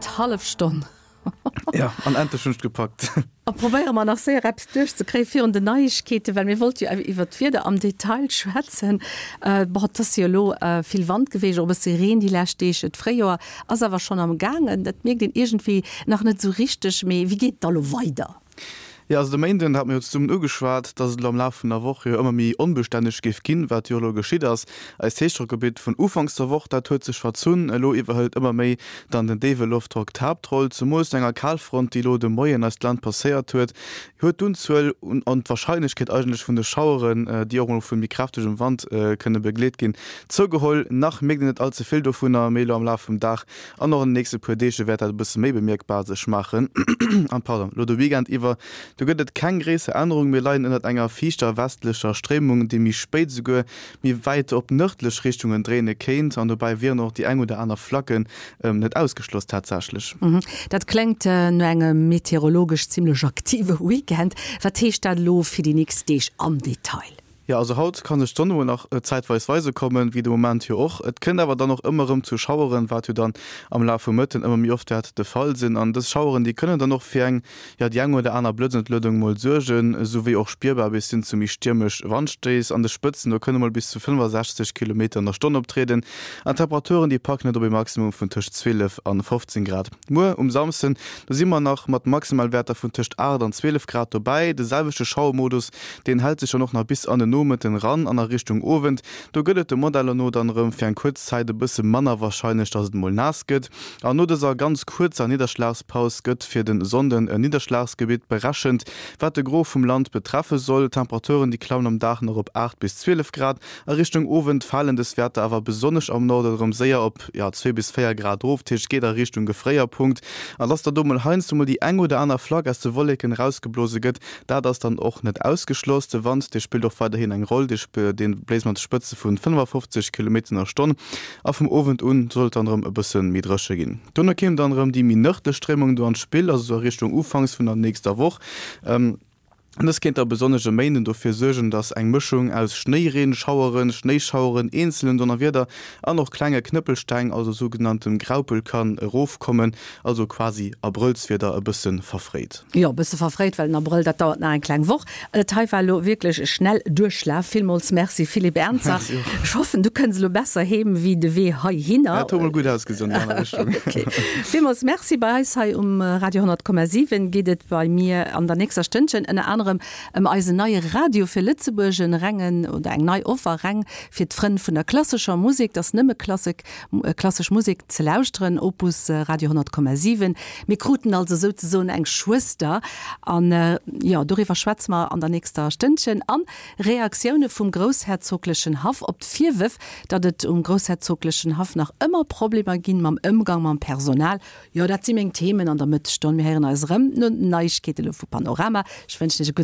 D'hallef Stonn. Ja, an endlech hunn ech et gepackt. A probéiere mer nach séier eppes duerchzekréie virun den Neiegkeeten, well mir wollte jo awer iwwert d'Wieder am Detail schwätzen. Bon, et ass jo elo vill Wand geweecht, och e bësse Reen déi lescht Deeg. D'Fréijoer ass awer schonn am gaangen. Dat mierkt een iergendwéi nach net esou richteg. Mee wéi geet et da lo weider? Jo, also de Méinden hate mir jo zesummen ugeschwat, dass et elo am Laf vun der Woch jo ëmmer méi onbestänneg géif ginn, wat jo elo geschitt ass. Eist Héichdrockgebitt vun ufanks der Woch, dat huet sech verzunn. Elo iwwerhëlt ëmmer méi dann den déiwe Loftdrock d'Haaptroll. Zemools no enger Kalfront, déi elo de Moien eist Land passéiert huet, huet d'Unzuel un an d'Warscheinlechkeet eigentlech vun de Schaueren, déi och mol vu méi kräftegem Wand kënne begleet ginn, zougeholl. Nach mierkt een net all ze vill dovunner, mee elo am Laf vum Dag An och an den nächste puer Deeg wäert dat e bësse méi bemierkbar sech maachen. An, pardon, elo de Weekend iwwer, do gëtt et keng gréisser Ännerung. Mir leien ënnert enger fiichter westlecher Stréimung, déi méi spéit esouguer méi wäit op nërdlech Richtungen dréine kéint. An dobäi wieren och déi eng oder aner Flacken net ausgeschloss tatsächlech. Dat kléngt no engem meteorologesch zimmlech aktive Weekend. Wat heescht dat elo fir déi nächst Deeg am Detail? Jo, also haut ka sech d'Sonn emol nach zäitweis weise kommen, wéi de Moment jo och. Et kënnt awer dann och ëmmer erëm zu Schaueren, wat jo dann am Laf vum Mëtten ëmmer méi oft wäert de Fall sinn. An dës Schaueren, déi kënnen dann och fir eng, jo, déi eng oder aner Blëtzentluedung mol suergen, esouwéi och spierbar bis hin zu méi stiermesch Wandstéiss. An de Spëtzen, do kënne mol bis zu 65 Kilometer an der Stonn optrieden. An d'Temperaturen, déi packen et op e Maximum vun tëscht 12 an 15 Grad. Muer um Samsden, do si mer nach mat Maximalwäerter vun tëscht 8 an 12 Grad dobäi. De selwechte Schauermodus, deen hält sech dann och nach bis an den Nomëtten ran an a Richtung Owend. Do gëtt et de Modeller no dann erëm fir eng kuerz Zäit e bësse manner warscheinlech, dass et mol naass gëtt. An no dëser ganz kuerzer Nidderschlagspaus gëtt fir de Sonnden e Nidderschlagsgebitt berechent, wat de Gros vum Land betreffe soll. D'Temperaturen, déi klammen am Dag nach op 8 bis 12 Grad. A Richtung Owend falen dës Wäerter awer besonnesch am Norden erëm séier op, jo, 2 bis 4 Grad erof, dat heescht et geet a Richtung Gefréierpunkt. An dass da do mol heiansdo mol déi eng oder aner Flack aus de Wolleken erausgeblose gëtt, dat ass dann och net ausgeschloss. De Wand, dee spillt och weiderhin eng Roll, dee bléist mat Spëtze vu 55 Kilometer an der Stonn. A vum Owend un soll et dann erëm e bësse méi dréche ginn. Dono kéim dann erëm déi méi nërdlech Stréimung do an d'Spill, also sou a Richtung ufanks vun der nächster Woch. Dës kéint da besonnesch e Méinden dofir suergen, dass eng Mëschung aus Schnéireen, Schaueren, Schnéischaueren, eenzelen Donnerwieder an och klenge Knëppelsteng, also sougenanntem Graupel, kann erofkommen, also quasi Abrëllswieder e bësse verfréit. Jo, e bësse verfréit, well den Abrëll, dat dauert nach eng kleng Woch. Dat hei war elo wierklech e Schnellduerchlaf. Villmools Merci, Philippe Ernzer. Merci och. Ech hoffen, du kënns elo besser heem wéi de Wee heihinner. Dat huet mol gutt ausgesinn an déi aner Richtung. Ok. Villmools Merci. Bei eis hei um Radio 100,7 geet et bei mir an der nächster Stënnchen ënner anerem ëm eisen neie Radio fir Lëtzebuerg, en rengen oder eng nei Offer reng fir d'Frënn vun der klassescher Musek. Et ass nëmme Klassek, klassesch Musek ze lauschteren, Opus Radio 100,7. Mir kruten also souzesoen eng Schwëster an jo, doriwwer schwätze mer an der nächster Stënnchen. An Reaktioune vum groussherzoglechen Haff op d'Virwërf, datt et um groussherzoglechen Haff nach ëmmer Problemer ginn mam Ëmgang mam Personal. Jo, dat si meng Themen an der Mëttesstonn. Mir héieren eis erëm no den Neiegkeete lo vu Panorama. Ech wënschen iech e gudde.